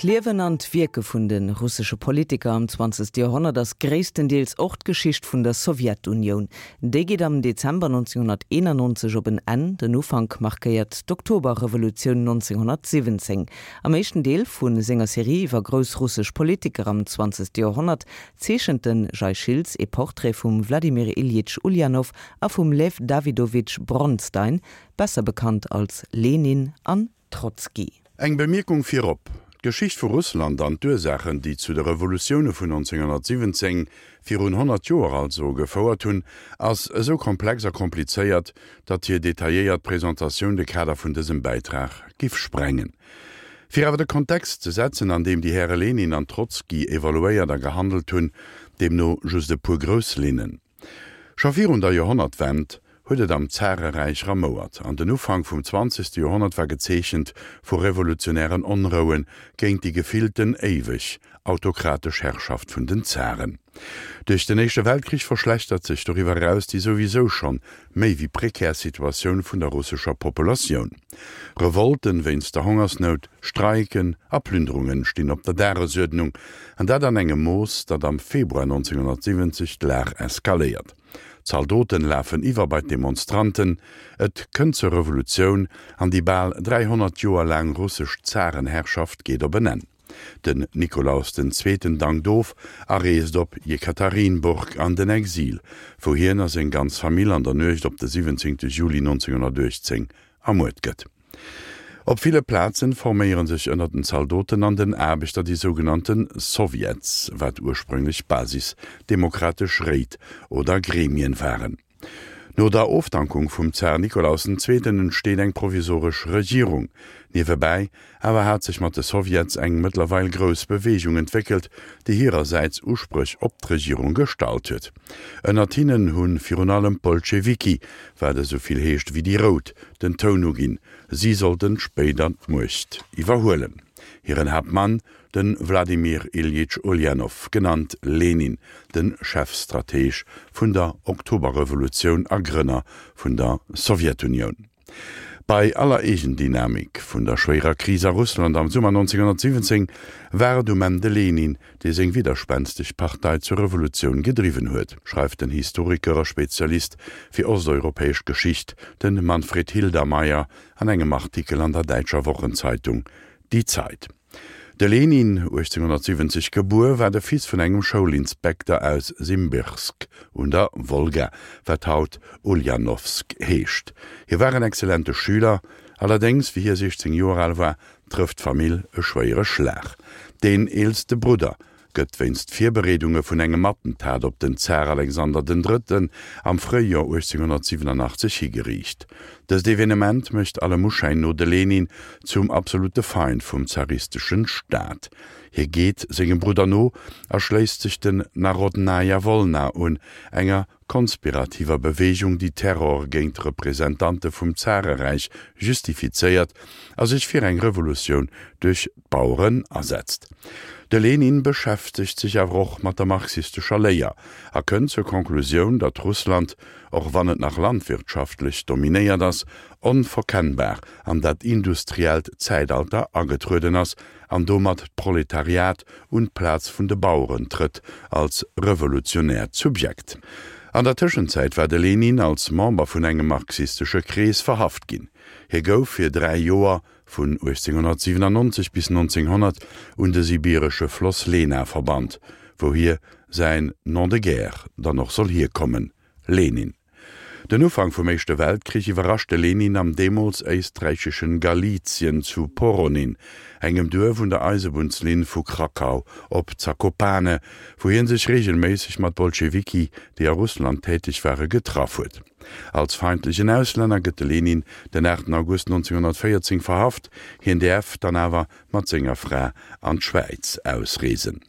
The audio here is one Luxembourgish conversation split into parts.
D'Liewen an d'Wierke vun de russesche Politiker am zwanzegste Joerhonnert ass gréisstendeels och d'Geschicht vun der Sowjetunioun. Déi geet am Dezember 1991 op en Enn, den Ufank markéiert d'Oktoberrevolutioun 1917. Am éischten Deel vu senger Serie iwwer grouss russesch Politiker am zwanzegste Joerhonnert zeechent de Jay Schiltz ee Portrait vum Wladimir Iljitsch Uljanow a vum Lew Dawidowitsch Bronstein, besser bekannt als Lenin an Trotzki. Eng Bemierkung virop, D'Geschicht vu Russland an d'Ursaachen, déi zu de Revolutioune vun 1917, virun 100 Joer also, gefouert hunn, ass esou komplex a komplizéiert, datt hir detailléiert Presentatioun de Kader vun dësem Bäitrag giff sprengen. Fir awer de Kontext ze setzen, an deem déi Häre Lenin an Trotzki evoluéiert a gehandelt hunn, deemno just e puer grouss Linnen. Scho virun der Joerhonnertwend huet et am Zareräich ramouert an den Ufank vum zwanzegste Joerhonnert war gezeechent vu revolutionären Onroue géint déi gefillten éiweg autokratesch Herrschaft vun den Zaren. Duerch den Éischte Weltkrich verschlechtert sech doriwwer eraus déi souwisou schonn méi wéi prekär Situatioun vun der russescher Populatioun. Revolten wéinst der Hongersnout, Streiken a Plünderungen stinn op der Dagesuerdnung, an dat an engem Mooss, datt am Februar 1970 d'Lag eskaléiert. Zaldoten lafen iwwer bei d'Demonstranten, et kënnt zur Revolutioun an déi bal 300 Joer laang russesch Zarenherrschaft geet op en Enn. Den Nikolaus den Zweeten dankt of a reest op Jekaterinburg an den Exil, wou hien a seng ganz Famill an der Nuecht op de 17 Juli 1918 ermuert gëtt. Op ville Plazen forméiere sech ënner den Zaldoten an den Aarbechter déi sougenannte Sowjets, wat ursprünglech basisdemokratesch Réit oder Gremien waren. No der Ofdankung vum Zar Nikolaus den Zweeten entsteet eng provisoresch Regierung. Niewebäi awer hat sech mat de Sowjets eng mëttlerweil grouss Beweegung entwéckelt, déi hirersäits Uspréch op d'Regierung gestallt huet. Ënnert hinnen hu virun allem d'Bolschewiki, wat esou vill heescht wéi déi Rout, den Toun uginn. Si sollten spéider d'Muecht iwwerhuelen. Hiren Haaptmann De Wladimir Iljitsch Uljanow, genannt Lenin, de Chefstrateg vun der Oktoberrevolutioun a Grënner vun der Sowjetunioun. Bei aller Eegendynamik vun der schwéierer Kris a Russland am Summer 1917 war et um Enn de Lenin, dee seng widderspensteg Partei zur Revolutioun gedriwwen huet, schreift den Historiker a Spezialist fir osteuropäesch Geschicht, de Manfred Hildermeier, an engem Artikel an der däitscher Wochenzeitung Die Zeit. De Lenin, 1870 gebuer, war de Fils vun engem Schoulinspekter aus Simbirsk un der Wolga, wat haut Uljanowsk heescht. Hie war en exzellente Schüler, allerdéngs, wéi hie 16 Joer al war, trëfft d'Famill e schwéiere Schlag. Deen eelste Brudder gëtt wéinst Virbereedunge vun engem Attentat op den Zar Alexander den Drëtten am Fréijoer 1887 higeriicht. Dëst Evenement mécht allem Uschäin no de Lenin zum absolute Feind vum zaristeschen Staat. Hie geet sengem Brudder no a schléisst sech den Narodnaja Wolna un, enger konspirativer Beweegung, déi Terror géint Representante vum Zareräich justifizéiert a sech fir eng Revolutioun duerch d'Baueren asetzt. De Lenin beschäftegt sech awer och mat der marxistescher Léier a kënnt zur Konklusioun, datt Russland, och wann et nach landwirtschaftlech dominéiert ass, onverkennbar an dat industriellt Zäitalter agetrueden ass an domat d'Proletariat un d'Plaz vun de Baueren trëtt als revolutionäert Subjekt. An der Tëschenzäit war de Lenin als Member vun engem marxistesche Krees verhaft ginn. Hie gouf fir 3 Joer, vun 1897 bis 1900, un de sibiresche Floss Lena verbannt, wou hie säin Nom de guerre dann och soll hierkommen, Lenin. Den Ufank vum Éischte Weltkrich iwwerrascht de Lenin am deemools éisträicheschen Galizien zu Poronin, engem Duerf un der Eisebunnslinn vu Krakau op Zakopane, wou hie sech reegelméisseg mat Bolschewiki, déi a Russland täteg ware, getraff huet. Als feindlechen Auslänner gëtt de Lenin den 8 August 1914 verhaft, hien däerf dann awer mat senger Fra an d'Schwäiz ausreesen.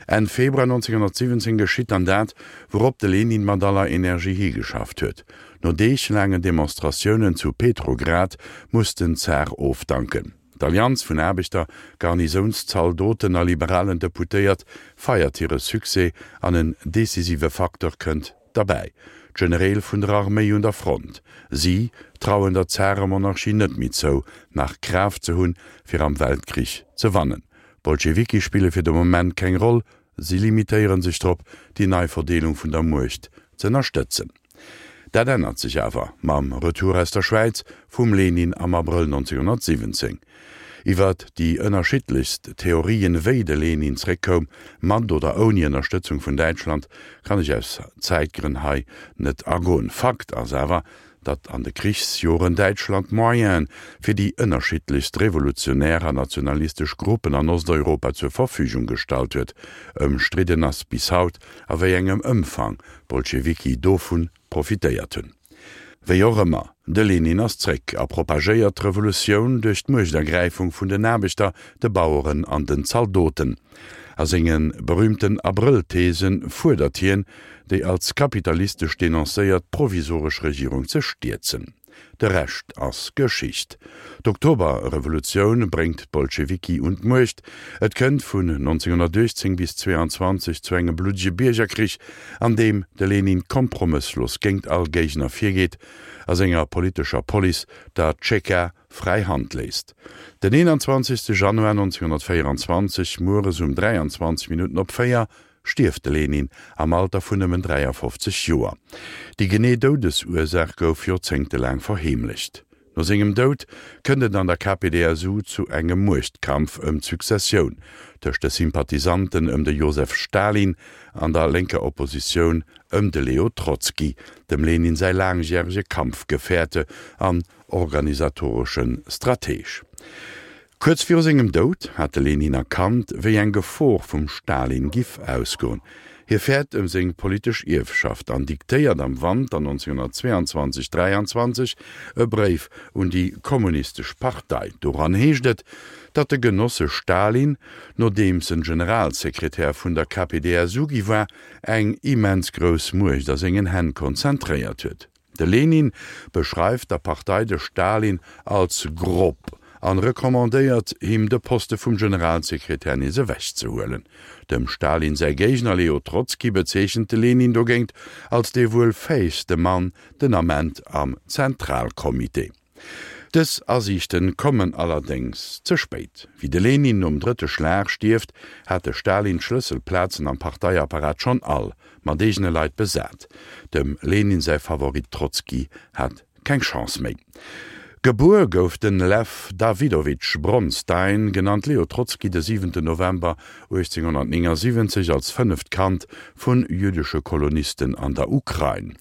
Enn Februar 1917 geschitt dann dat, wourop de Lenin mat aller Energie higeschafft huet. No deeglaangen Demonstratiounen zu Petrograd muss den Zar ofdanken. D'Allianz vun Aarbechter, Garnisounszaldoten a liberalen Deputéiert feiert hire Succès an en decisive Facteur kënnt derbäi, d'Genereel vun der Arméi un der Front. Si trauen der Zaremonarchie net méi zou, nach Kraaft ze hunn, fir am Weltkrich ze wannen. D'Bolschewiki spille fir de Moment keng Roll, si limitéiere sech drop, déi nei Verdeelung vun der Muecht z'ënnerstëtzen. Dat ännert sech awer mam Retour aus der Schwäiz vum Lenin am Abrëll 1917. Iwwer déi ënnerschiddlechst Theorien, wéi de Lenin zréckkoum, mat oder ouni Ënnerstëtzung vun Däitschland, kann ech aus Zäitgrënn hei net agoen. Fakt ass awer, datt an de Krichsjoren Däitschland Moyene fir déi ënnerschiddlechst revolutionär an nationalistesch Gruppen an Osteuropa zur Verfügung gestallt huet. Ëmstridden ass bis haut, a wéi engem Ëmfang d'Bolschewiki dovu profitéiert hunn. Wéi och ëmmer, de Lenin ass zréck a propagéiert d'Revolutioun duerch d'Muechtergräifung vun den Aarbechter, de Baueren an den Zaldoten. A senge berüümten Abrëll-Thesen fuerdert hien, déi als kapitalistesch denoncéiert provisoresch Regierung ze stierzen. De Rescht ass Geschicht. D'Oktoberrevolutioun bréngt d'Bolschewiki un d'Muecht. Et kënnt vun 1918 bis 22 zu engem bluddege Biergerkrich, an deem de Lenin kompromësslos géingt all Géigner virgeet a senger politescher Police, der Tscheka, fräi Hand léisst. Den 21. Januar 1924, mueres um 23 Minutten op 4, stierft de Lenin am Alter vun nëmmen 53 Joer. Déi genee Doudesursaach gouf joerzéngtelaang verheemlecht. No sengem Doud kënnt et an der KPdSU zu engem Muechtkampf ëm d'Successioun tëscht de Sympathisanten ëm de Josef Stalin an der lénker Oppositioun ëm de Leo Trotzki, dem Lenin säi laangjärege Kampfgefährte an organisatoresche Strateg. Kuerz viru sengem Doud hat de Lenin erkannt, wéi eng Gefor vum Stalin giff ausgoen. Hie fäert ëm seng politesch Ierfschaft an diktéiert am Wanter 1922, 23 e Bréif un déi kommunistesch Partei. Doran heescht et, datt de Genosse Stalin, nodeems en Generalsekretär vun der KPdSU gi war, eng immens grouss Muecht a sengen Hänn konzentréiert huet. De Lenin beschreift der Partei de Stalin als grob an recommandéiert him de Poste vum Generalsekretär nees ewech ze huelen. Dem Stalin säi Géigner Leo Trotzki bezeechent de Lenin dogéint als dee wuel fäegste Mann den Ament am Zentralcomité. Dës Asiichten kommen allerdéngs ze spéit. Wéi de Lenin nom drëtte Schlag stierft, hat de Stalin d'Schlësselplazen am Parteiapparat schonn all mat eegene Leit besat. Dem Lenin säi Favorit Trotzki hat keng Chance méi. Gebuer gouf de Lew Dawidowitsch Bronstein, genannt Leo Trotzki, de siwenten November 1879 als fënneft Kand vu jüddesche Kolonisten an der Ukrain.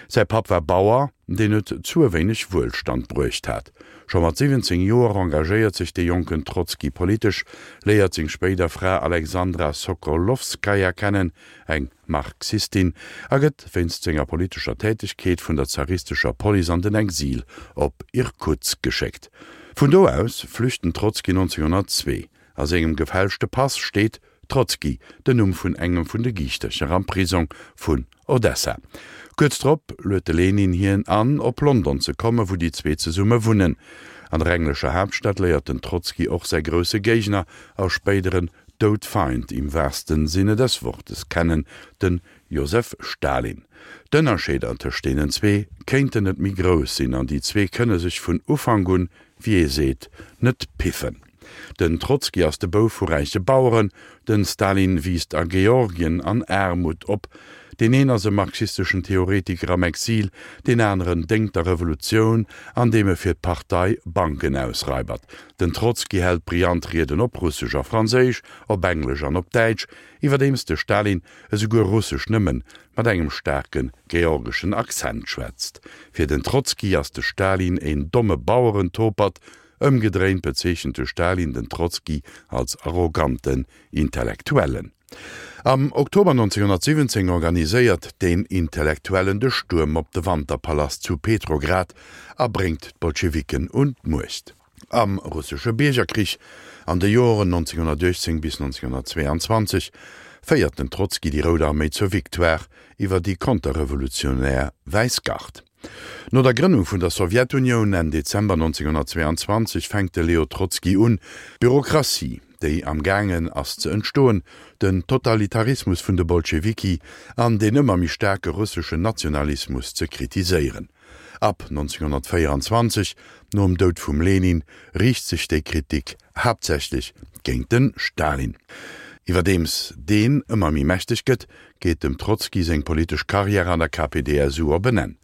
Säi Papp war Bauer. deen et zu e wéineg Wuelstand bruecht hat. Scho mat 17 Joer engagéiert sech de jonken Trotzki politesch, léiert seng spéider Fra Alexandra Sokolowskaja kennen, eng Marxistin, a gëtt wéinst senger politescher Tätegkeet vun der zaristescher Police an den Exil op Irkutsk geschéckt. Vun do aus flücht den Trotzki 1902. A sengem gefälschte Pass steet Trotzki, den Numm vun engem vun de Giichtercher am Prisong vun Odessa. Kuerz drop luet de Lenin hien an, op London ze kommen, wou déi zwee zesumme wunnen. An der englescher Haaptstad léiert den Trotzki och säi grousse Géigner a spéideren Doudfeind im wahrsten Sinne des Wortes kennen, den Josef Stalin. D'Ënnerscheeder tëscht deenen zwee kéinten net méi grouss sinn an déi zwee kënne sech vun Ufank un, wéi ee seet, net piffen. Den Trotzki ass de Bouf vu räiche Baueren, den Stalin wiisst a Georgien an Aarmut op. Deen een ass e marxisteschen Theoretiker am Exil, deen aneren déngt der Revolutioun, andeem e fir d'Partei Banken ausraibert. Den Trotzki hält brillant Rieden op Russesch a Franséisch, op Englesch an op Däitsch, iwwerdeems de Stalin esouguer Russesch nëmmen mat engem staarke georgeschen Accent schwätzt. Fir den Trotzki ass de Stalin een domme Bauerentopert, Ëmgedréint bezeechent de Stalin den Trotzki als arroganten Intellektuellen. Am Oktober 1917 organiséiert deen Intellektuellen de Stuerm op de Wanterpalast zu Petrograd a bréngt d'Bolschewiken un d'Muecht. Am russesche Biergerkrich an de Joren 1918 bis 1922 féiert den Trotzki déi Rout Arméi zur Victoire iwwer déi konterrevolutionär Wäiss Gard. No der Grënnung vun der Sowjetunioun Enn Dezember 1922 fänkt de Leo Trotzki un, d'Bürokratie, déi am gaangen ass ze entstoen, den Totalitarismus vun de Bolschewiki an deen ëmmer méi staarke russeschen Nationalismus ze kritiséieren. Ab 1924, nom Doud vum Lenin, riicht sech déi Kritik haaptsächlech. géint de Stalin. Iwwerdeems deen ëmmer méi mächteg gëtt, geet dem Trotzki seng politesch Karriär an der KPdSU op en Enn.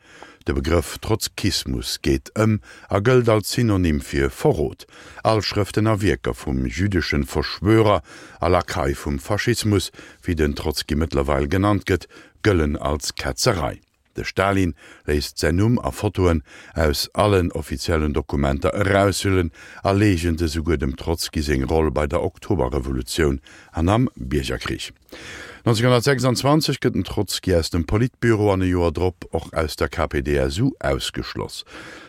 De Begrëff Trotzkismus geet ëm a gëllt als Synonym fir Verrot. All Schrëften a Wierker vum jüdeschen Verschwörer a Lakai vum Faschismus, wéi den Trotzki mëttlerweil genannt gëtt, gëllen als Ketzerei. De Stalin léisst säin Numm a Fotoen aus allen offiziellen Dokumenter eraushüllen a leegent esouguer dem Trotzki seng Roll bei der Oktoberrevolutioun an am Biergerkrich. 1926 gëtt den Trotzki aus dem Politbüro an e Joer drop och aus der KPdSU ausgeschloss.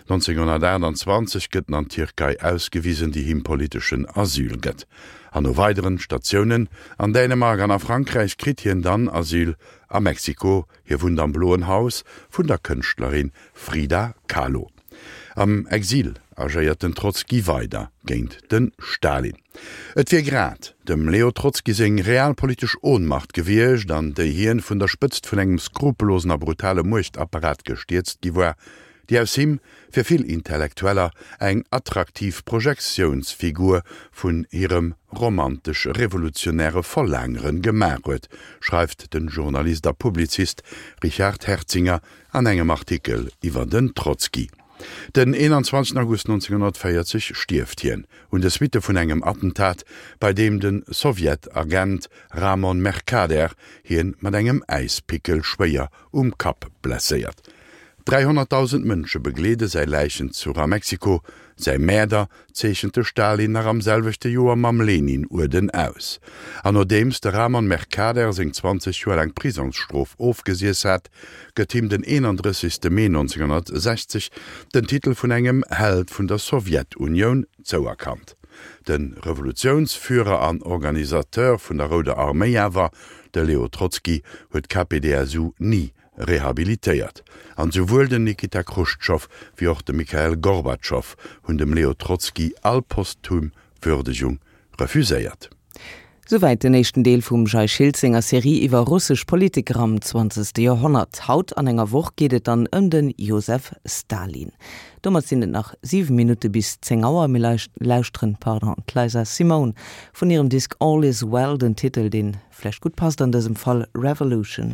1928 gëtt en an d'Tierkei ausgewisen, déi him politeschen Asyl gëtt. An no weideren Statiounen an Dänemark an a Frankräich kritt hien dann Asyl a Mexiko. Hie wunnt am Bloen Haus vun der Kënschtlerin Frida Kahlo. Am Exil agéiert den Trotzki weider géint de Stalin. Et wier grad dem Leo Trotzki seng realpolitesch Ohnmacht gewiescht, an déi hien vun der Spëtzt vun engem skrupellosen a brutale Muechtapparat gestierzt gi war, déi aus him fir vill Intellektueller eng attraktiv Projektiounsfigur vun hirem romantesch-revolutionäre Verlaangere gemaach huet, schreift de Journalist a Publizist Richard Herzinger an engem Artikel iwwer den Trotzki. Den 21 August 1940 stierft hien un de Suitte vun engem Attentat, bei deem de Sowjet-Agent Ramon Mercader hien mat engem Äispickel schwéier um Kapp blesséiert. 300.000 Mënsche begleede säi Läichenzuch a Mexiko. Säi Mäerder zeechent de Stalin nach am selwechte Joer mam Lenin-Uerden aus. An nodeems de Ramon Mercader seng 20 Joer laang Prisongsstrof ofgesiess hat, gëtt him den 31. Mee 1960 den Titel vun engem Held vun der Sowjetunioun zouerkannt. De Revolutiounsführer an Organisateur vun der Rouder Arméi awer, de Leo Trotzki, huet d'KPdSU ni rehabilitéiert. An souwuel den Nikita Chruschtschow wéi och de Mikhail Gorbatschow hunn dem Leo Trotzki all posthum Würdegung refuséiert. Souwäit den éischten Deel vum Jay Schiltz senger Serie iwwer russesch Politiker am zwanzegste Joerhonnert. Haut an enger Woch geet et dann ëm de Josef Stalin. Domat sinn et nach 7 Minutte bis 10 Auer. Mir lauschteren, pardon, d'Liza Simone vun hirem Disk All Is Well, den Titel deen vläicht gutt passt an dësem Fall, Revolution.